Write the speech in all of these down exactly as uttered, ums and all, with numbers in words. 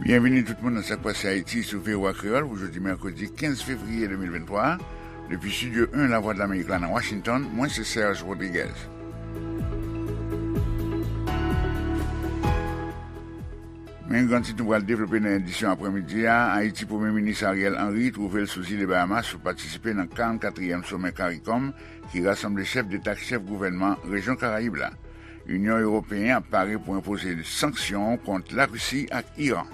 Byenvini tout moun nan Sa k Pase Ayiti sou V O A Kreyòl pou jodi mèkredi kenz fevriye de mil venntwa a. Depi Estidyo en Lavwadlamerik la nan Washington, mwen se Serge Rodriguez. Men gran tit nou pral devlope nan edisyon aprèmidi a, Ayiti, Premye Minis Ariel Henry twouve l sou zile Bahamas pou patisipe nan karannkatriyèm somè CARICOM ki rasanble chèf deta ak chèf gouvènman rejyon Karayib la. Inyon Ewopeyen ap pare pou enpoze sanksyon kont Larisi ak Iran.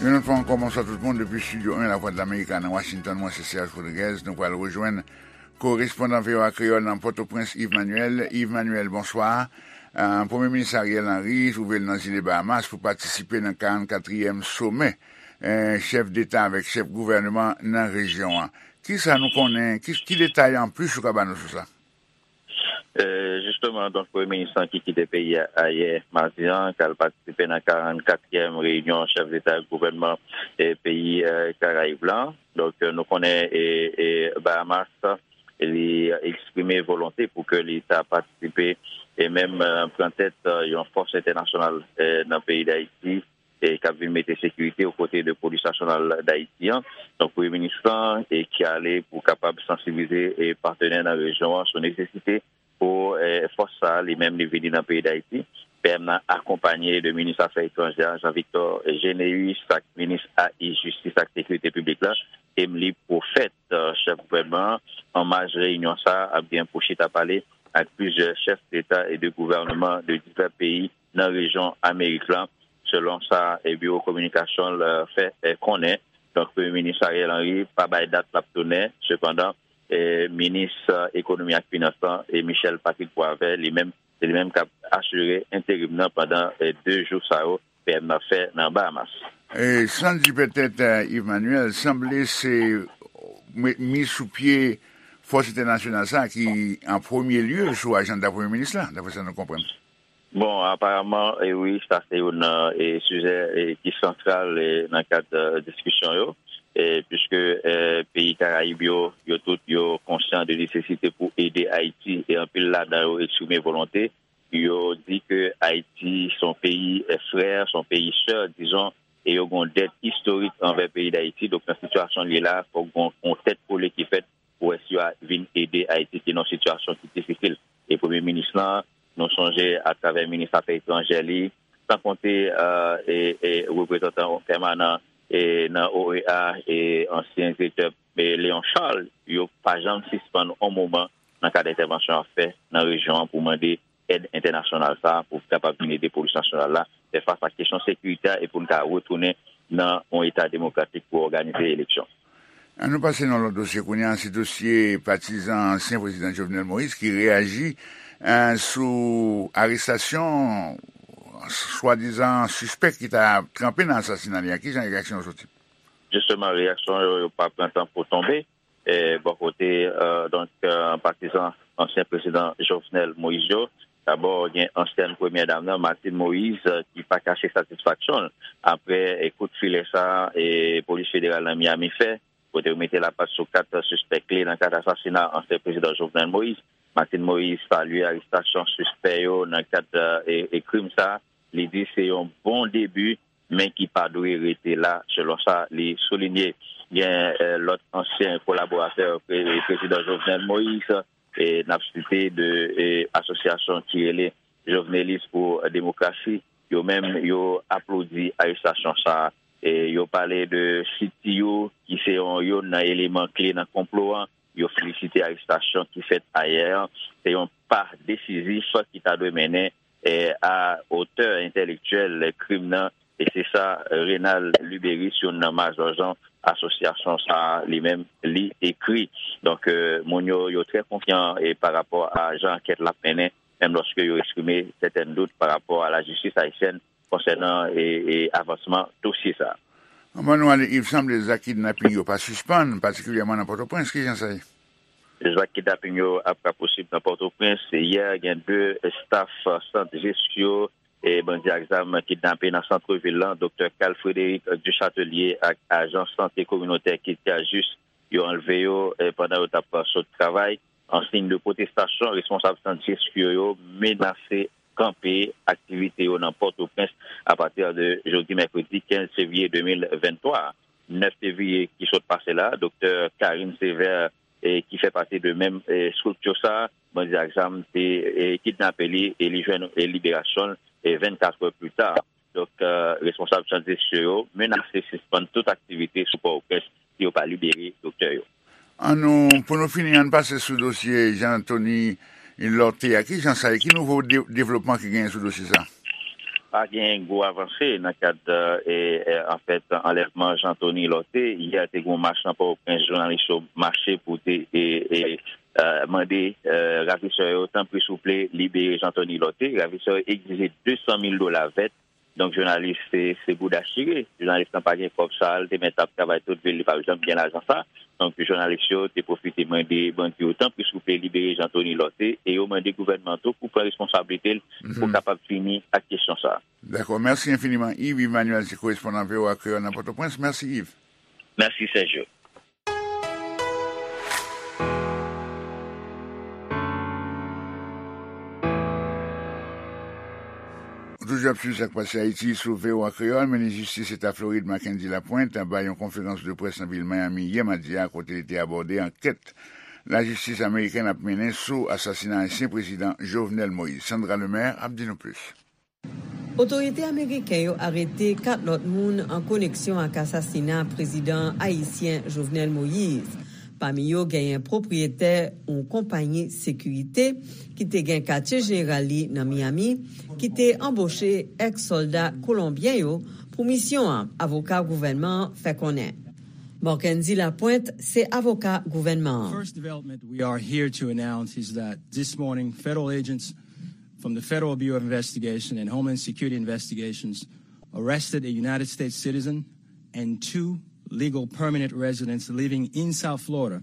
Yon lòt fwa ankò, bonswa tout moun depi Estidyo en Lavwadlamerik la nan Washington. Mwen se Serge Rodriguez. Nou pral rejwenn korespondan V O A Kreyòl nan Pòtoprens, Yves Manuel. Yves Manuel, bonswa. Ah, Premye Minis Ariel Henry twouve l nan zile Bahamas pou patisipe nan karannkatriyèm somè, eh, chèf deta avèk chèf gouvènman nan rejyon an. Kisa nou konnen, ki, ki detay anplis ou ka ba nou sou sa? Eh, jisteman, donk, Premye Minis lan ki kite peyi a ayè madi an, k al patisipe nan karannkatriyèm reyinyon chèf deta ak gouvènman, eh, peyi, eh, Karayib lan. Donk, eh, nou konnen, eh, eh, Bahamas, li eksprime volonte pou ke li ta patisipe e menm, eh, pran tèt, eh, yon fòs entènasyonal, eh, nan peyi Dayiti, eh, k ap vin mete sekirite okote de Polis Nasyonal Dayiti an. Donk, Premye Minis lan, eh, ki ale pou kapab sansibilize, eh, patnè nan rejyon an sou nesesite pou, eh, fòs sa a li menm li vini nan peyi Dayiti. P M nan akonpanye de minis afè etranjè a, Jean Victor Généus, ak minis A I, jistis ak sekirite piblik la, Emmelie Prophète, eh, chèf gouvènman an. An maj reyinyon sa a ap gen pou chita pale ak plizyè chèf deta e de gouvènman de divè peyi nan rejyon Amerik lan, selon sa, eh, biwo kominikasyon l, eh, fè, eh, konnen. Donk, Premye Minis Ariel Henry pa bay dat l ap tounen. Sepandan, eh, minis, eh, ekonomi ak finans lan, eh, Michel Patrick Boisvert, li menm, se li menm k ap asire enterim nan pandan, eh, de jou sa yo P M nan fè nan Bahamas. E, san di petèt, eh, Yves Manuel, sanble se mi-, miz sou pye fòs entènasyonal sa a ki an premye lye sou ajanda Premye Minis la, daprè sa nou konprann. Bon, aparaman, e wi, sa se youn nan, e, sijè, e, ki santral, e, nan kad, e, diskisyon yo, e, piske, e, peyi Karayib yo, yo tout, yo konsyan de nesesite pou ede Ayiti, e anpil ladan yo eksprime volonte, yo di ke Ayiti se yon peyi, e, frè, se yon peyi sè, dizon, e yo gen yon dèt istorik anvè peyi Dayiti. Donk, nan sitiyasyon li ye la, fòk gen yon, yon tèt kole ki fèt pou wè si yo a vin ede Ayiti ki nan yon sitiyasyon ki difisil. E Premye Minis lan, nou sonje atravè minis afè etranjè li, san konte, e, e, e reprezantan pèmanan, e, nan O E A, e ansyen direktè, e, Léon Charles, yo pa janm sispann yon moman nan kad entèvansyon y ap fè nan rejyon an pou mande èd entènasyonal sa a pou kapab vin ede polis nasyonal la fè fas ak kesyon sekirite a e pou n ka retounen nan yon eta demokratik pou òganize eleksyon. An nou pase nan lòt dosye kounye a, se dosye patizan ansyen prezidan Jovenel Moïse ki reyaji, eh, sou arestasyon swadizan sispèk ki ta tranpe nan asasina li a. Kijan reyaksyon yo soti? Jisteman, reyaksyon yo, yo pa pran tan pou tonbe. E, bò kote, eh, donk, eh, patizan ansyen prezidan Jovenel Moïse yo, dabò, gen ansyèn premyè dam nan, Martine Moïse, eh, ki pa kache satisfaksyon l apre, eh, kout filè sa, eh, polis federal nan Miami fè, kote yo mete lapat sou kat sispèk kle nan kad asasina ansyen prezidan Jovenel Moïse. Martine Moïse salye arestasyon sispè yo nan kad, eh, e, e krim sa. Li di se yon bon debi, men ki pa dwe rete la, selon sa li soulinye. Gen, eh, lòt ansyen kolaboratè pre-, prezidan Jovenel Moïse, e n ap site de, e, asosyasyon ki rele Jovenelis pou Demokrasi, yo menm, yo aplodi arestasyon sa a. E yo pale de C T U, ki se yon, youn nan eleman kle nan konplo an. Yo felisite arestasyon ki fèt ayè an. Se yon pa desizif ki ta dwe mennen, e, a otè entèlektyèl krim nan. E se sa Renald Luberice, youn nan majò jan asosyasyon sa a, li menm, li ekri. Donk, eh, moun yo, yo trè konfyan, e pa rapò a jan ankèt la ap mennen, menm lòske yo eksprime sètèn dout pa rapò a lajistis ayisyèn konsènan, e, e avansman dosye sa a. Anvan nou ale, Yves, sanble zak kidnaping yo pa sispann, patikilyèman nan Pòtoprens. Kijan sa ye? Zak kidnaping yo ap rapousib nan Pòtoprens. Yè, gen de staf sant Jesco e bandi ak zam kidnape nan sant vil lan, Doktè Carl Frédéric Duchâtelier ak ajan sante kominotè Kid Kajis, yo anlve yo, e pandan yo t ap sot travay. An siy de pwotestasyon, responsab sant Dieskiryo yo menase kanpe aktivite yo nan Pòtoprens apati de jodi mèkredi kenz fevriye de mil venntwa a. Nèf fevriye ki sot pase la, Doktè Karine Sévère, e ki fè pati de menm, e estrikti sa, bandi ak zam te, e kidnape li e li jwenn, e liberasyon l, e vennkat è pli ta. Donk, e, responsab sant Dieskiryo yo menase sispann tout aktivite sou Pòtoprens si yo pa libere doktè yo. An nou, pou nou fini, ann pase sou dosye Jean Anthony Lorthé a. Ki jan sa ye? Ki nouvo de-, devlopman ki genyen sou dosye sa? Pa gen gwo avanse nan kad, e, e, anfèt, anlèvman Jean Anthony Lorthé. Yè te gen yon mach nan Pòtoprens, jounalis yo mache pou te, e, e, e, mande, e, ravisè yo, tanpri souple, libere Jean Anthony Lorthé. Ravisè yo egzije de san mil dola vèt. Donk, jounalis, se, se bouda chire. Jounalis lan pa gen kòb sa, li te mèt ap travay tout vi l, li p ap janm gen lajan sa. Donk, jounalis yo te pwofite mande bandi yo, tanpri souple, libere Jean Anthony Lorthé, e yo mande gouvènman an tou pou pran responsablite l pou kapab fini ak kesyon sa. Dakò, mèsi enfiniman, Yves Emmanuel, se korespondan V O A Kreyòl nan Pòtoprens. Mèsi, Yves. Mèsi, Sergio. Ou toujou ap swiv Sa k Pase Ayiti sou V O A Kreyòl. Minis jistis Eta Florid, Mackendy Lapointe, bay yon konferans de près nan vil Miami yè madi a, kote li te abòde ankèt lajistis amerikèn ap mennen sou asasina ansyen prezidan Jovenel Moïse. Sandra Lemaire ap di nou plis. Otorite ameriken yo arete kat lòt moun an koneksyon ak asasina prezidan ayisyen Jovenel Moïse. Pami yo, genyen pwopriyetè yon konpayi sekirite ki te gen katye jeneral li nan Miami, ki te anboche èks sòlda kolonbyen yo pou misyon an, avoka gouvènman an fè konnen. Marckendy Lapointe se avoka gouvènman an. First development we are here to announce is that this morning, federal agents from the Federal Bureau of Investigation and Homeland Security Investigations arrested a United States citizen and two legal permanent residents living in South Florida.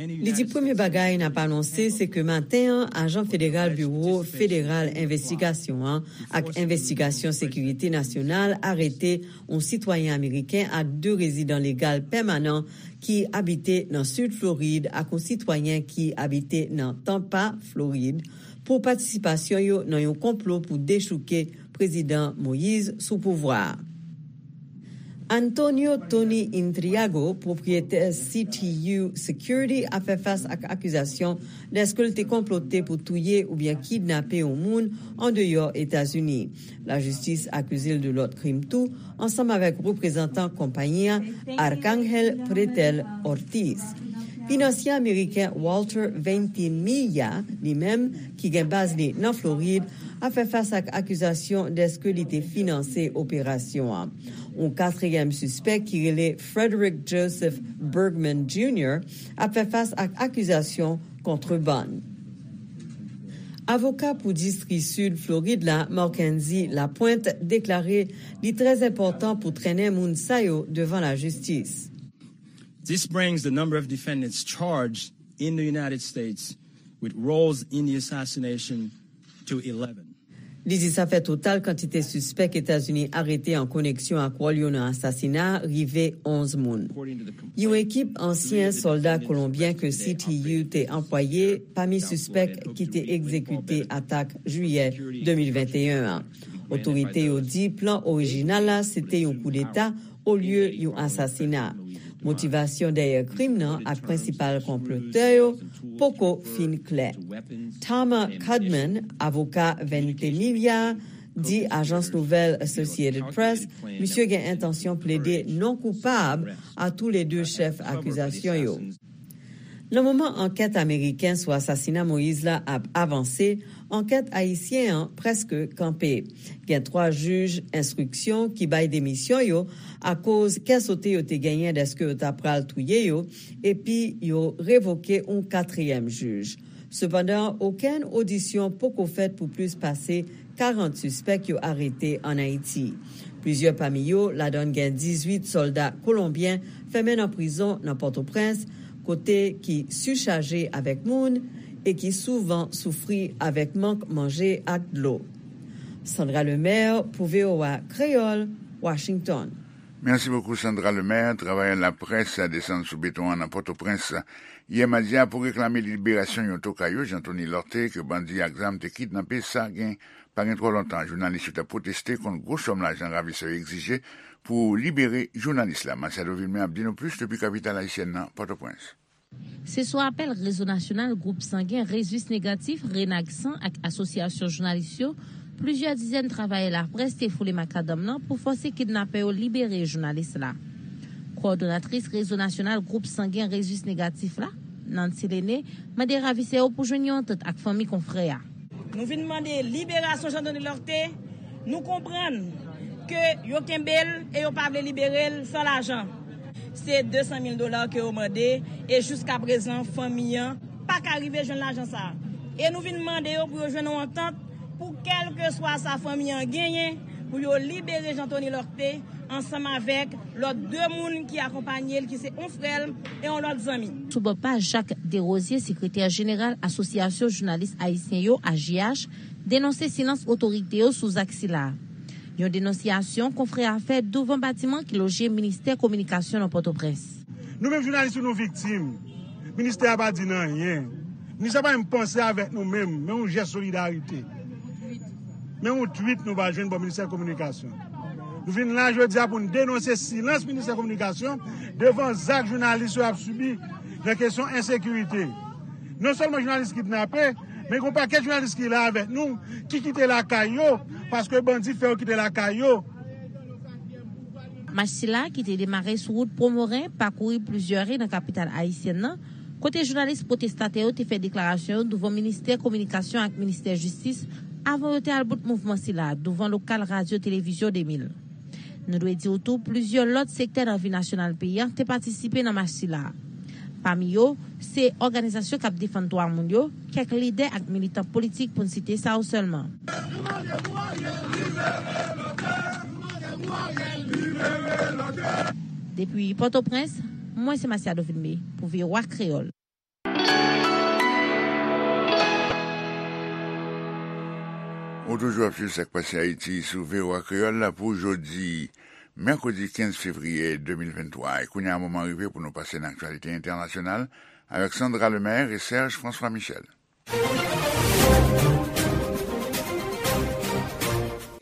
Li di premye bagay n ap anonse se ke maten an, ajan federal Biwo Federal Envestigasyon an ak Envestigasyon Sekirite Nasyonal arete yon sitwayen ameriken ak de rezidan legal pèmanan ki abite nan Sid Florid ak yon sitwayen ki abite nan Tampa, Florid, pou patisipasyon yo nan yon konplo pou dechouke Prezidan Moïse sou pouvwa a. Antonio Tony Intriago, pwopriyetè C T U Security, ap fè fas ak akizasyon dèske l te konplote pou touye oubyen kidnape yon moun andeyò Etazini. Lajistis akize l de lòt krim tou, ansanm avèk reprezantan konpayi a, Arcángel Pretel Ortiz. Finansye ameriken Walter Ventimiglia, li menm, ki gen baz li nan Florid, ap fè fas ak akizasyon dèske li te finanse operasyon an. Yon katriyèm sispèk ki rele Frederick Joseph Bergman Junior ap fè fas ak akizasyon kontrebann. Avoka pou distri Sid Florid la, Marckendy Lapointe, deklare li trè enpòtan pou trennen moun sa yo devan lajistis. This brings the number of defendants charged in the United States with roles in the assassination to eleven. Li di sa fè total kantite sispèk Etazini arete an koneksyon ak wòl yo nan asasina a rive onz moun. Yon ekip ansyen sòlda kolonbyen ke C T U te anplwaye pami sispèk ki te egzekite atak jiyè de mil venteyen an. Otorite yo di plan orijinal la se te yon koudeta olye yon asasina. Motivasyon dèyè krim nan ak prensipal konplotè yo poko fin klè. Tama Cudman, avoka Ventimiglia, di ajans nouvèl Associated Press, misye gen entansyon plede non koupab a toulede chèf akizasyon yo. Nan moman ankèt ameriken sou asasina Moïse la ap avanse, ankèt ayisyen an prèske kanpe. Gen twa jij enstriksyon ki bay demisyon yo akoz kè sote yo te genyen dèske yo ta pral touye yo, epi yo revoke yon katriyèm jij. Sepandan, okenn odisyon poko fèt pou plis pase karant sispèk yo arete ann Ayiti. Plizyè pami yo, ladan gen dizuit sòlda kolonbyen, fèmen nan prizon nan Pòtoprens, kote ki sichaje avèk moun e ki souvan soufri avèk mank manje ak dlo. Sandra Lemaire pou V O A Kreyòl, Washington. Merci beaucoup, Sandra Lemaire. Travayè laprès desann sou beton an nan Pòtoprens yè madi a pou reklame liberasyon yon tokay yo, Jean Tony Lorté, ke bandi ak zam te kidnape. Sa gen, pa gen twò lontan, jounalis yo t ap pwoteste kont gwo sòm lajan ravisè yo egzije pou libere jounalis la. Masiado Vilmé ap di nou plis depi kapital ayisyèn nan, Pòtoprens. Se sou apèl Rezo Nasyonal Gwoup Sangen Rezus Negatif, Renagsan, ak Asosyasyon Jounalis yo, plizyè dizèn travayè laprès te foule makadanm nan pou fòse kidnapè yo libere jounalis la. Kowòdonatris Rezo Nasyonal Gwoup Sangen Rezus Negatif la, Nancy Lene, mande ravisè yo pou jwenn yon antant ak fanmi konfrè a. Nou vin mande liberasyon Jean Tony Lorté. Nou konprann ke yo kenbe l e yo pa vle libere l san lajan. Se de san mil dola ke yo mande, e jiska prezan, fanmi an pa ka rive jwenn lajan sa a. E nou vin mande yo pou yo jwenn yon antant pou kèlkeswa sa fanmi an genyen, pou yo libere Jean Tony Lorté ansanm avèk lòt de moun ki akonpanye l, ki se yon frè l e yon lòt zanmi. Sou bò pa, Jacques Desrosiers, sekretè jeneral Asosyasyon Jounalis Ayisyen yo, A J H, denonse silans otorite yo sou zak sila. Yon denonsyasyon konfrè a fè douvan batiman ki loje Ministè Kominikasyon nan Pòtoprens. Nou menm jounalis yo, nou viktim. Ministè a pa di n anyen. Ministè a pa menm panse avèk nou menm, men yon jès solidarite. Men yon twit nou pa jwenn bò Ministè Kominikasyon. Nou vin la jodi a pou n denonse silans Ministè Kominikasyon devan zak jounalis yo ap sibi nan kesyon ensekirite. Non sèlman jounalis kidnape, men gen yon pakèt jounalis ki la avèk nou, ki kite lakay yo, paske bandi fè yo kite lakay yo. Mach sila, ki te demare sou wout Pwomoren, pakouri plizyè ri nan kapital ayisyèn nan, kote jounalis pwotestatè yo te fè deklarasyon yo douvan Ministè Kominikasyon ak Ministè Jistis avan yo te al bout mouvman sila douvan lokal Radyo Televizyon de mil. Nou dwe di w tou, plizyè lòt sektè nan vi nasyonal peyi a te patisipe nan mach sila. Pami yo, se òganizasyon k ap defann dwa moun yo, kèk lidè ak militan politik, pou n site sa yo sèlman. Depi Pòtoprens, mwen se Masiado Vilmé pou V O A Kreyòl. Ou toujou ap swiv Sa k Pase Ayiti sou V O A Kreyòl la pou jodi, mèkredi kenz fevriye de mil venntwa. E kounye a, moman rive pou nou pase nan aktyalite entènasyonal avèk Sandra Lemaire e Serge François Michel.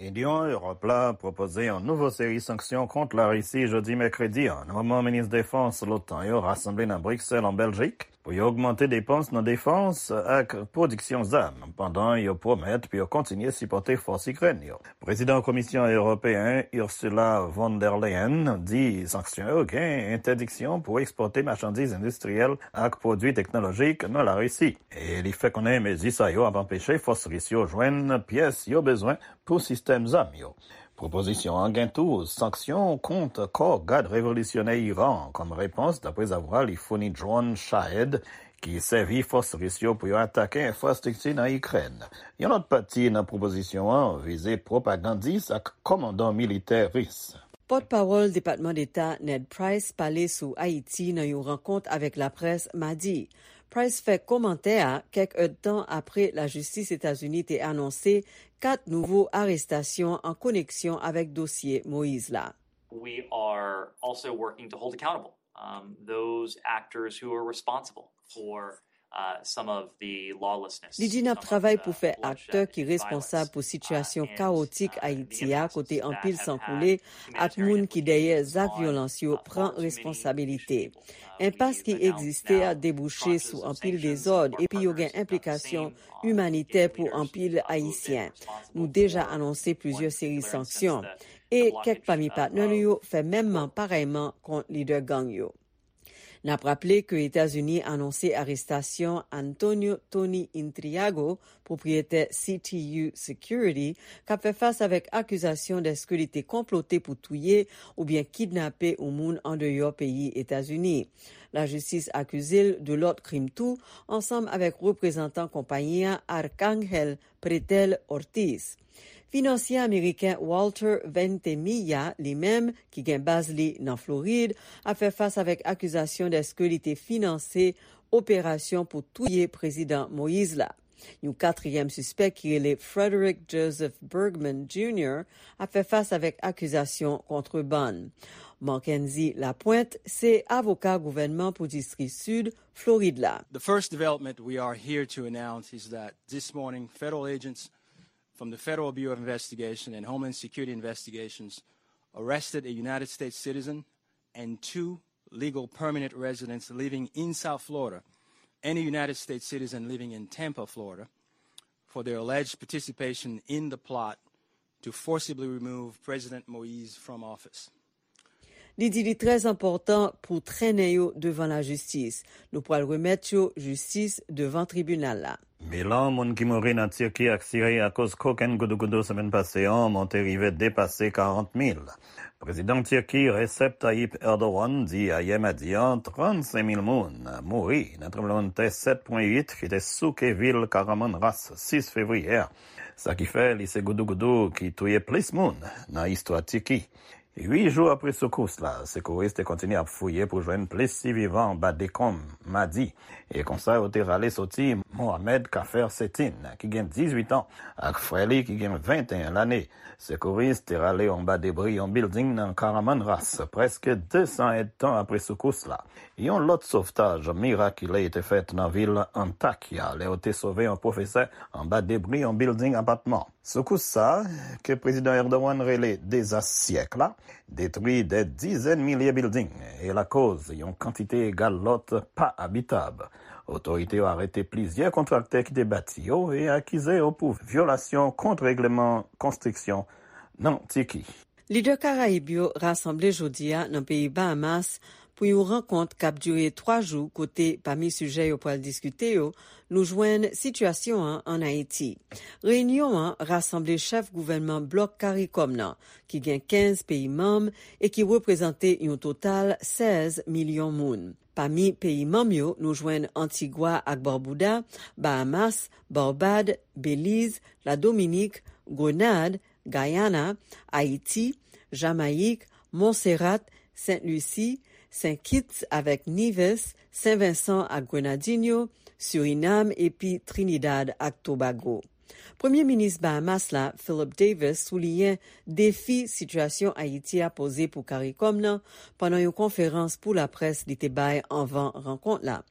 Inyon Ewòp la pwopoze yon nouvo seri sanksyon kont Larisi jodi mèkredi an, nan moman minis defans l'OTAN yo rasanble nan Briksèl, an Bèljik, pou yo ogmante depans nan defans ak pwodiksyon zam, pandan yo pwomèt pou yo kontinye sipòte fòs Ikrèn yo. Prezidan Komisyon Ewopeyen, Ursula von der Leyen, di sanksyon yo gen entèdiksyon pou ekspòte machandiz endistriyèl ak pwodui teknolojik nan Larisi. E li fè konnen mezi sa yo ap anpeche fòs ris yo jwenn pyès yo bezwen pou sistèm zam yo. Pwopozisyon an gen tou sanksyon kont kò Gad Revolisyonè Iran an kòm repons, daprezavwa li founi dwòn Shahed ki sèvi fòs ris yo pou yo atake enfrastrikti nan Ikrèn. Yon lòt pati nan pwopozisyon an vize pwopagandis ak kòmandan militè ris. Pòtpawòl Depatman Deta Ned Price pale sou Ayiti nan yon rankont avèk laprès madi. Price fè kòmantè a kèk èdtan apre lajistis Etazini te anonse kat nouvo arestasyon an koneksyon avèk dosye Moyiz la. We are also working to hold accountable, um, those actors who are responsible for, uh, some of the lawlessness, Li di n ap travay pou fè aktè ki responsab pou sitiyasyon kawotik Ayiti a, kote anpil san koule ak moun ki dèyè zak vyolans yo pran responsabilite. Enpas ki egziste a debouche sou anpil dezòd epi yo gen enplikasyon imanitè pou anpil Ayisyen. Nou deja anonse plizyè seri sanksyon. E kèk pami patnè nou yo fè menmman parèyman kont lidè gang yo. N ap raple ke Etazini anonse arestasyon Antonio Tony Intriago, pwopriyetè C T U Security, k ap fè fas avèk akizasyon dèske li te konplote pou touye oubyen kidnape yon moun andeyò peyi Etazini. Lajistis akize l de lòt krim tou, ansanm avèk reprezantan konpayi a, Arcángel Pretel Ortiz. Finansye ameriken Walter Ventimiglia, li menm, ki gen baz li nan Florid, ap fè fas avèk akizasyon dèske li te finanse operasyon pou touye Prezidan Moyiz la. Yon katriyèm sispèk ki rele Frederick Joseph Bergman Junior ap fè fas avèk akizasyon kontrebann. Mackenzie Lapointe se avoka gouvènman pou distri sid Florid la. The first development we are here to announce is that this morning, federal agents from the Federal Bureau of Investigation and Homeland Security investigations arrested a United States citizen and two legal permanent residents living in South Florida and a United States citizen living in Tampa, Florida, for their alleged participation in the plot to forcibly remove President Moïse from office. Li di li trè enpòtan pou trennen yo devan lajistis. Nou pral remèt yo jistis devan tribinal la. Bilan moun ki mouri nan Tiki ak Siri akoz kokenn goudougoudou semèn pase an monte rive depase karant mil. Prezidan Tiki Recep Tayyip Erdogan di ayè madi an trannsenk mil moun mouri nan tranblemanntè sèt pwen uit ki te souke vil Kahramanmaraş sis fevriye a. Sa ki fè li se goudougoudou ki touye plis moun nan istwa Tiki. Uit jou apre soukous la, sekouris te kontinye ap fouye pou jwenn plis sivivan anba dekonm madi. E konsa yo te rale soti Mohamed Kafer Setin, ki gen dizuit an, ak frè li ki gen venteyen lane. Sekouris te rale yo anba debri yon bilding nan Kahramanmaraş, prèske desan èdtan apre soukous la. Yon lòt sovtaj mirakile te fèt nan vil Antakya, lè yo te sove yon pwofesè anba debri yon bilding apatman. Soukous sa a, ke Prezidan Erdogan rele dezas syèk la, detwi dè dizèn milye bilding e lakoz yon kantite egal lòt pa abitab. Otorite yo arete plizyè kontraktè ki te bati yo e akize yo pou vyolasyon kont regleman konstriksyon nan Tiki. Lidè Karayib yo rasanble jodi a nan peyi Bahamas pou yon rankont k ap dire twa jou kote, pami sijè yo pral diskite yo, nou jwenn sitiyasyon an ann Ayiti. Reyinyon an rasanble chèf gouvènman blòk Karikòm nan, ki gen kenz peyi manm e ki reprezante yon total sèz milyon moun. Pami peyi manm yo, nou jwenn Antigwa ak Babouda, Bahamas, Barbad, Beliz, Ladominik, Grenad, Gayana, Ayiti, Jamayik, Montserrat, Sent Lisi, Sent Kitts avèk Nives, Sen Vensan ak Grenadinyo, Sirinam epi Trinidad ak Tobago. Premye minis Bahamas la, Philip Davis, souliyen defi sitiyasyon Ayiti a poze pou Karikòm nan pandan yon konferans pou laprès li te bay anvan rankont la.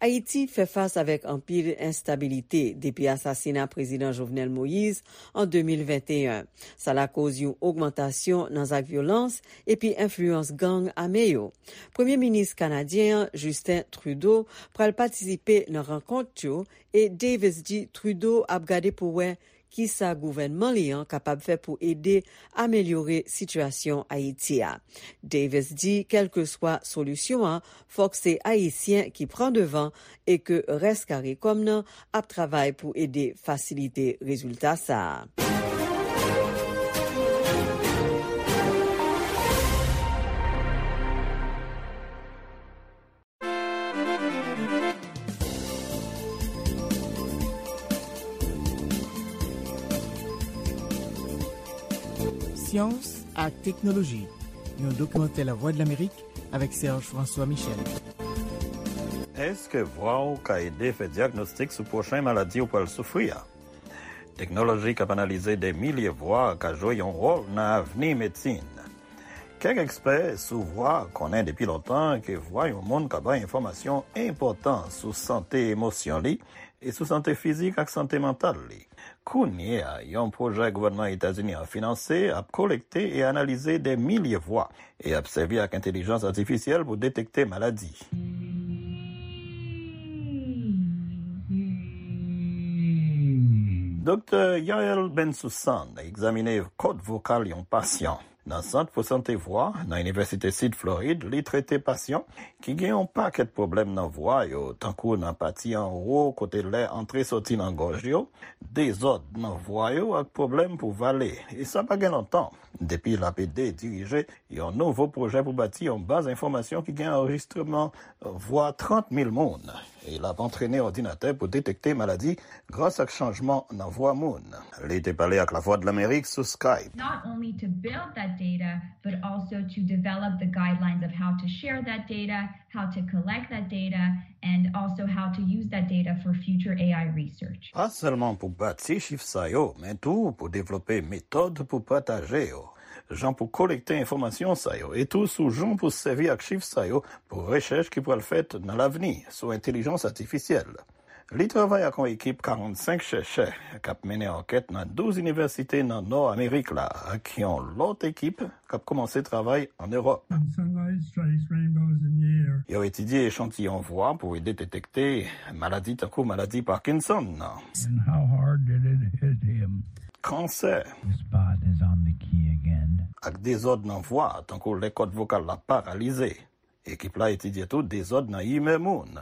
Ayiti fè fas avèk anpil enstabilite depi asasina Prezidan Jovenel Moïse an de mil venteyen. Sa lakoz yon ogmantasyon nan zak vyolans epi enfliyans gang ame yo. Premye minis kanadyen an, Justin Trudeau, pral patisipe nan rankont yo e Davis di Trudeau ap gade pou wè kisa gouvènman li an kapab fè pou ede amelyore sitiyasyon Ayiti a. Davis di, kèlkeswa solisyon an, fòk se Ayisyen ki pran devan e ke rès Karikòm nan ap travay pou ede fasilite rezilta sa a. Syans ak teknoloji, yon dokimantè Lavwadlamerik avèk Serge François Michel. Èske vwa w ka ede fè dyagnostik sou pwochen maladi w pral soufri a? Teknoloji k ap analize de milye vwa ka jwe yon wòl nan avni medsin. Kèk ekspè sou vwa konnen depi lontan ke vwa yon moun ka bay enfòmasyon enpòtan sou sante emosyon li e sou sante fizik ak sante mantal li. Kounye a, yon pwojè gouvènman Etazini an finanse ap kolekte e analize de milye vwa e ap sèvi ak entèlijans atifisyèl pou detekte maladi. Doktè Yael Bensoussan egzamine kòd vokal yon pasyan. Nan Sant pou Sante Vwa, nan Inivèsite Sid Florid, li trete pasyan ki gen yon pakèt pwoblèm nan vwa yo, tankou nan pati anwo kote lè antre soti nan gòj yo, dezòd nan vwa yo ak pwoblèm pou vale. E sa pa gen lontan, depi l ap ede dirije yon nouvo pwojè pou bati yon baz enfòmasyon ki gen anrejistreman vwa trant mil moun. E l ap antrene òdinatè pou detekte maladi gras ak chanjman nan vwa moun. Li te pale ak Lavwadlamerik sou Skype. Not only to build that data, but also to develop the guidelines of how to share that data, how to collect that data, and also how to use that data for future A I research. Pa sèlman pou bati chif sa yo, men tou pou devlope metòd pou pataje yo, jan pou kolekte enfòmasyon sa yo, e tou sou jan pou sèvi ak chif sa yo pou rechèch ki pral fèt nan lavni sou entèlijans atifisyèl. Li travay ak yon ekip karannsenk chèchè k ap mennen ankèt nan douz inivèsite nan Nò Amerik la, ak yon lòt ekip k ap kòmanse travay ann Ewòp. Yo etidye echantiyon vwa pou ede detekte maladi tankou maladi Parkinson nan. Kansè. Ak dezòd nan vwa, tankou lè kòd vokal la paralize. Ekip la etidye tou dezòd nan imè moun.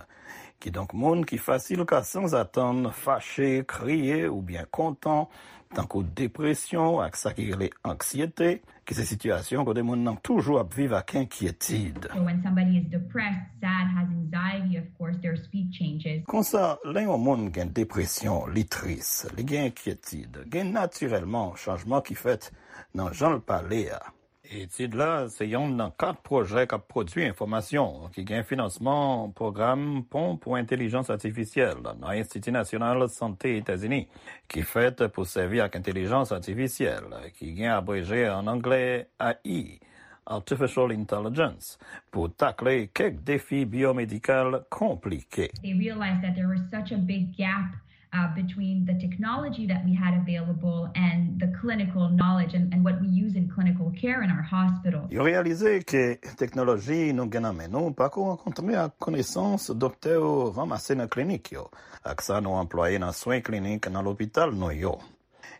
Kidonk, moun ki fasil ka sanzatann fache, kriye oubyen kontan, tankou depresyon ak sa ki rele anksyete, ki se sitiyasyon kote moun nan toujou ap viv ak enkyetid. So when somebody is depressed, sad, has anxiety, of course, their speech changes. Konsa, lè yon moun gen depresyon, li tris, li gen enkyetid, gen natirèlman chanjman ki fèt nan jan l pale a. Etid la se yonn nan kat pwojè k ap pwodui enfòmasyon ki gen finansman pwogram Pon pou Entèlijans Atifisyèl nan Enstiti Nasyonal Sante Etazini, ki fèt pou sèvi ak entèlijans atifisyèl, ki gen abreje ann anglè A I, Artificial Intelligence, pou takle kèk defi byomedikal konplike. They realized that there was such a big gap uh, between the technology that we had available and the clinical knowledge and, and what we use in clinical care in our hospitals. Yo reyalize ke teknoloji nou gen nan men nou pako rankontre ak konesans doktè yo ranmase nan klinik yo, ak sa nou anplwaye nan swen klinik nan lopital nou yo.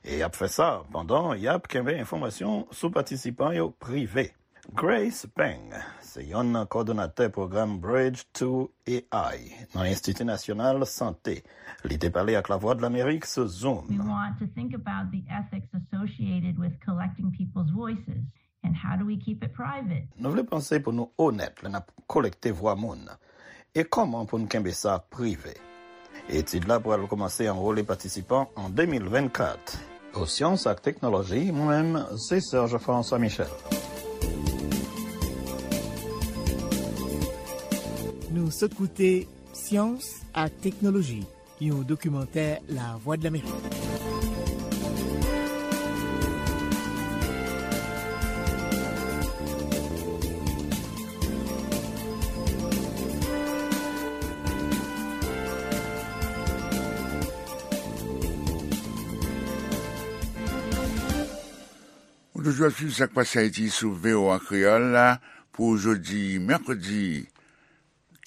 E y ap fè sa pandan y ap kenbe enfòmasyon sou patisipan yo prive. Grace Peng se yonn nan kòdonatè pwogram Bridge to A I nan Enstiti Nasyonal Sante. Li te pale ak Lavwadlamerik sou Zoom. We want to think about the ethics associated with collecting people's voices and how do we keep it private? Nou vle panse pou nou onèt lè n ap kolekte vwa moun. E kòman pou n kenbe sa prive? Etid la pral kòmanse anwole patisipan an de mil vennkat. Pou Syans ak Teknoloji, mwen menm, se Serge François Michel. Nou sot koute Syans ak Teknoloji, yon dokimantè Lavwadlamerik. Ou toujou ap swiv Sa k Pase Ayiti sou V O A Kreyòl la pou jodi mèkredi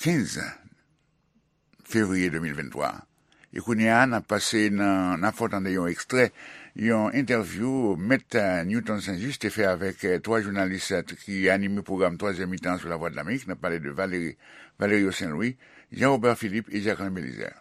kenz fevriye de mil venntwa. E kounye a, n ap pase nan, n ap fè w tande yon ekstrè, yon entèvyou Mèt, eh, Newton Saint-Just te fè avèk, eh, twa jounalis, eh, ki anime pwogram twazyèm mitan sou Lavwadlamerik. N ap pale de Valérie, Valerio Saint-Louis, Jean Robert Philippe e Jacquelin Belizaire.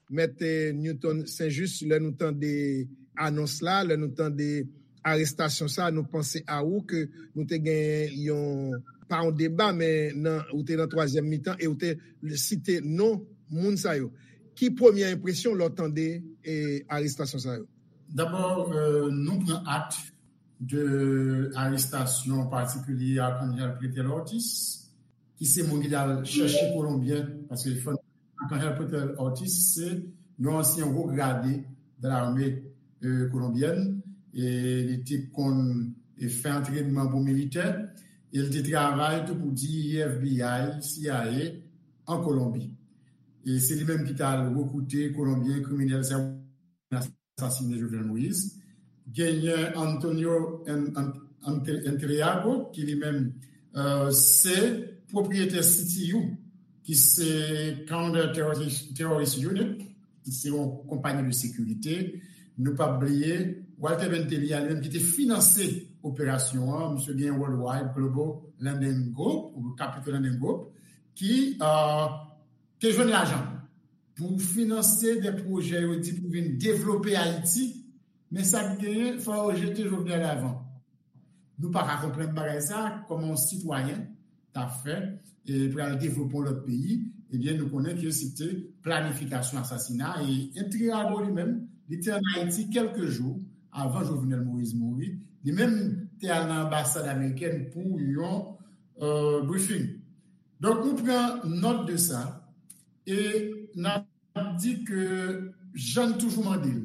Mèt, eh, Newton Saint-Just, lè nou tande anons la, lè nou tande arestasyon sa, nou panse a ou ke nou te gen yon, pa yon deba, men nan, ou te nan twazyèm mitan e ou te site non moun sa yo. Ki premye enpresyon lè w tande, eh, arestasyon sa yo? Dabò, eh, nou pran akte de arestasyon patikilye Arcangel Pretel Ortiz, ki se moun ki t al chèche Kolonbyen, paske fò Arcangel Pretel Ortiz se yon ansyen wo grade de lame, eh, kolonbyèn, e li te konn, eh, fè antrènman pou militè, e li te travay tou pou D E A, F B I, C I A an Kolonbi. E se li menm ki t al rekrite Kolonbyen kriminèl sa yo asasinen Jovenel Moïse. Genyen Antonio En-, En-, Ente-, Entreago, ki li menm, eh, se pwopriyetè C T U, ki se Counter Terrorist, Terrorist Unit, ki se yon konpayi de sekirite. Nou p ap bliye Walter Bentelia, li menm ki te finanse operasyon an, misye gen Worldwide Global Lending Group, ou Capital Lending Group, ki, eh, te jwenn lajan pou finanse de pwojè yo di pou vin devlope Ayiti, men sa k genyen, fò yo jete Jovenel avan. Nou pa ka konprann bagay sa, kòman yon sitwayen t ap fè, e pral devlope yon lòt peyi, ebyen, nou konnen ke se te planifikasyon asasina, e Entreago li menm, li te ann Ayiti kèlke jou avan Jovenel Moïse mouri, li menm te al nan anbasad amerikèn pou yon euh, briefing. Donk, nou pran nòt de sa e n ap di ke jan n toujou mande l,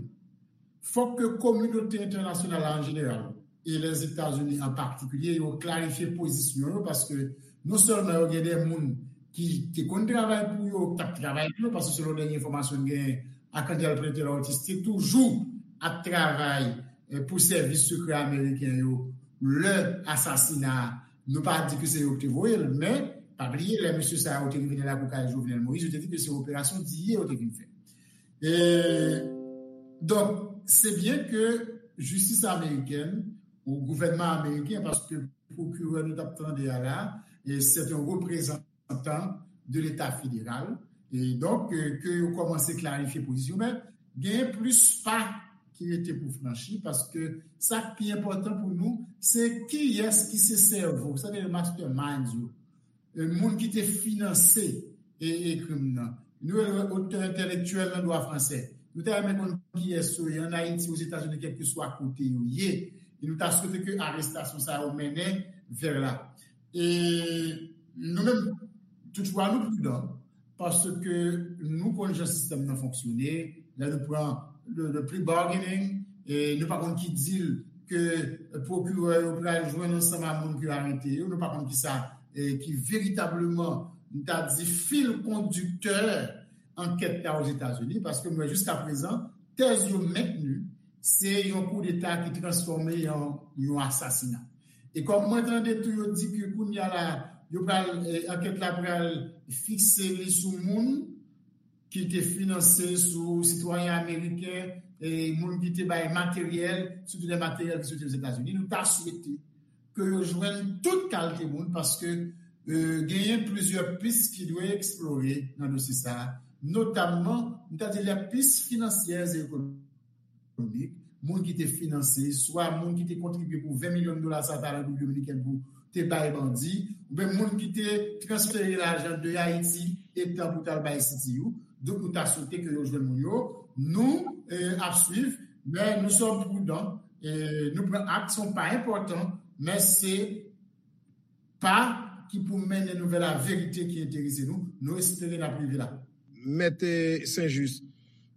fòk ke kominote entènasyonal la an jeneral e Lèzetazini an patikilye, yo klarifye pozisyon yo, paske non sèlman yo gen de moun ki te konn travay pou yo, k t ap travay pou yo, paske selon dènye enfòmasyon n genyen, Arcangel Pretel Ortiz te toujou ap travay eh, pou sèvis sekrè ameriken yo lè asasina a. Nou pa di ke se yo ki te voye l, men pa bliye lè mesye sa yo te rive nan lakou kay Jovenel Moïse, yo te di ke se operasyon Diye yo te vin fè. E, donk, se byen ke jistis amerikèn ou gouvènman ameriken, paske pwokirè nou t ap tande a la, e se yon reprezantan de Leta federal. E donk, euh, ke yo kòmanse klarifye pozisyon, men gen plis pa ki rete pou franchi, paske sa k pi enpòtan pou nou, se kiyès ki se sèvo, sa vle di masterminds yo, e moun ki te finanse e, e krim nan. Nou rele otè entèlektyèl nan dwa fransè. Nou ta renmen konn kiyès yo ye ann Ayiti, Ozetazini, kèlkeswa kote yo ye. E nou ta swete ke arestasyon sa yo mennen vè la. E nou menm, toutfwa, nou pridan, paske nou konn jan sistèm nan fonksyone, lè nou pran le, le plea bargaining, e nou pa konn ki deal ke pwokirè yo pral jwenn ansanm a moun ki arete yo, nou pa konn ki sa, e ki veritableman, nou ta di, fil kondiktè ankèt la Ozetazini, paske mwen, jiska prezan, tèz yo mentni, se yon koudeta ki transfòme an yon asasina. E kòm mwen tande tou yo di ke kounye a la, yo pral, eh, ankèt la pral fikse li sou moun ki te finanse, sou sitwayen ameriken, e moun ki te bay materyèl, sitou de materyèl ki soti Ozetazini. Nou ta swete ke yo jwenn tout kalite moun, paske, eh, genyen plizyè pis ki dwe eksplore nan dosye sa a, notamman, nou ta di, lè pis finansyè e ekonomik, moun ki te finanse, swa moun ki te kontribye pou ven milyon dola sa a ta Repiblik Dominikèn pou te bay bandi, oubyen moun ki te transfere lajan de Ayiti etan pou t al bay C T U. Donk, nou ta swete ke yo jwenn moun yo. Nou, eh, ap swiv, men nou sòm pridan, eh, nou pran ak, se yon pa enpòtan, men se pa ki pou mennen nou vè laverite ki enterese nou. Nou espere n ap rive la. Mèt, eh, Saint-Just,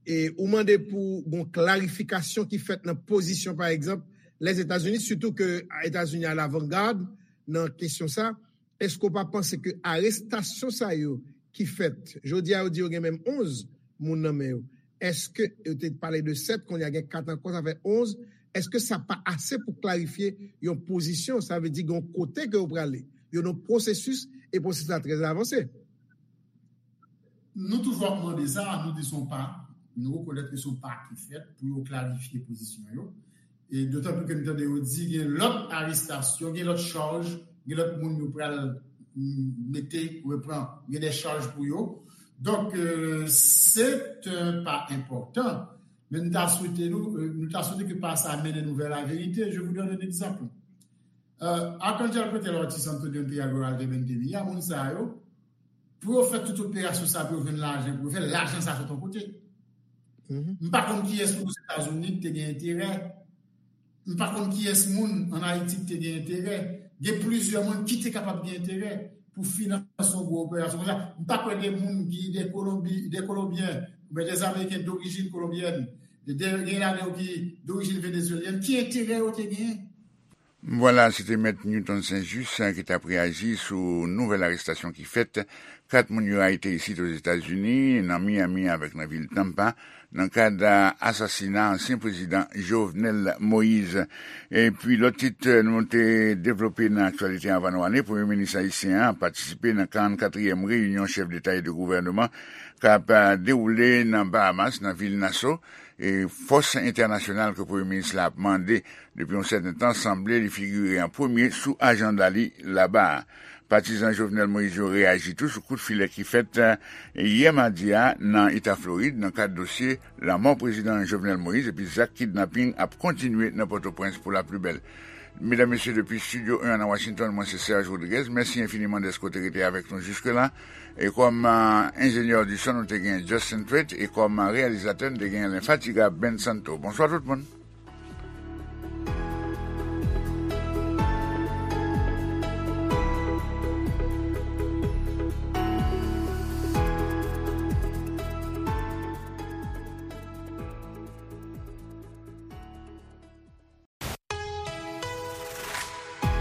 e ou mande pou gon klarifikasyon ki fèt nan pozisyon, pa egzanp, Lèzetazini, sitou ke Etazini alavangad nan kesyon sa. Èske w pa panse ke arestasyon sa yo ki fèt, jodi a yo di yo gen menm onz moun nan men yo, èske yo te pale de sèt, kounye a gen kat ankò, sa fè onz, èske sa pa ase pou klarifye yon pozisyon, sa vle di gen yon kote ke yo prale, yo nan pwosesis, e pwosesis la trè avanse? Nou toujou ap mande sa, nou di se yon pa, nou rekonèt ke se yon pa ki fèt pou yo klarifye pozisyon yo. E dotan pli ke nou tande yo di gen lòt arestasyon, gen lòt chaj, gen lòt moun yo pral, mm, mete, repran, gen de chaj pou yo. Donk, euh, se yon pa enpòtan, men nou ta swete nou, euh, nou ta swete ke pa sa mennen nou vè laverite. Je vous donne un exemple. Euh, Arcangel Pretel Ortiz, Antonio Imperial Goral de Bentemi, a moun sa yo, pou yo fè tout operasyon sa, pou yo jwenn lajan, pou yo fè lajan sa sot yon kote. M pa konn kiyès moun Ozetazini ki te gen enterè. M pa konn kiyès moun ann Ayiti ki te gen enterè. Gen plizyè moun ki te kapab gen enterè pou finanse yon gwo operasyon konsa. M pa kwè gen moun ki de Kolonbi, de Kolonbyen, oubyen de Ameriken dorijin kolonbyèn, de, gen ladan yo ki dorijin venezuelyèn, ki enterè yo te genyen. Vwala, se te Mèt Newton Saint-Just, eh, ki t ap reyaji sou nouvèl arestasyon ki fèt kat moun yo arete isit Ozetazini, nan Miami avèk nan vil Tampa, nan kad, eh, asasina ansyen prezidan Jovenel Moïse. Epi lòt tit, eh, nou te devlope nan aktyalite anvan nou ale, Premye Minis ayisyen an patisipe nan karannkatriyèm reyinyon chèf deta e de gouvèneman k ap, eh, dewoule nan Bahamas, nan vil Nassau. E fòs entènasyonal ke Premye Minis la ap mande depi yon sèten tan sanble li figire an premye sou ajanda li laba a. Patizan Jovenel Moïse yo reyaji tou sou kout filè ki fèt, eh, yè madi a nan Eta Florid nan kad dosye lanmò prezidan Jovenel Moïse, epi zak kidnaping ap kontinye nan Pòtoprens pou laplibèl. Medam, mesye, depi Estidyo en nan Washington, mwen se Serge Rodriguez. Mèsi enfiniman dèske w te rete avèk nou jiske la. E kòm, eh, enjenyè di son, nou te gen Justin Thwait, e kòm, eh, reyalizatè, nou te gen lenfatigab Ben Santo. Bonswa tout moun.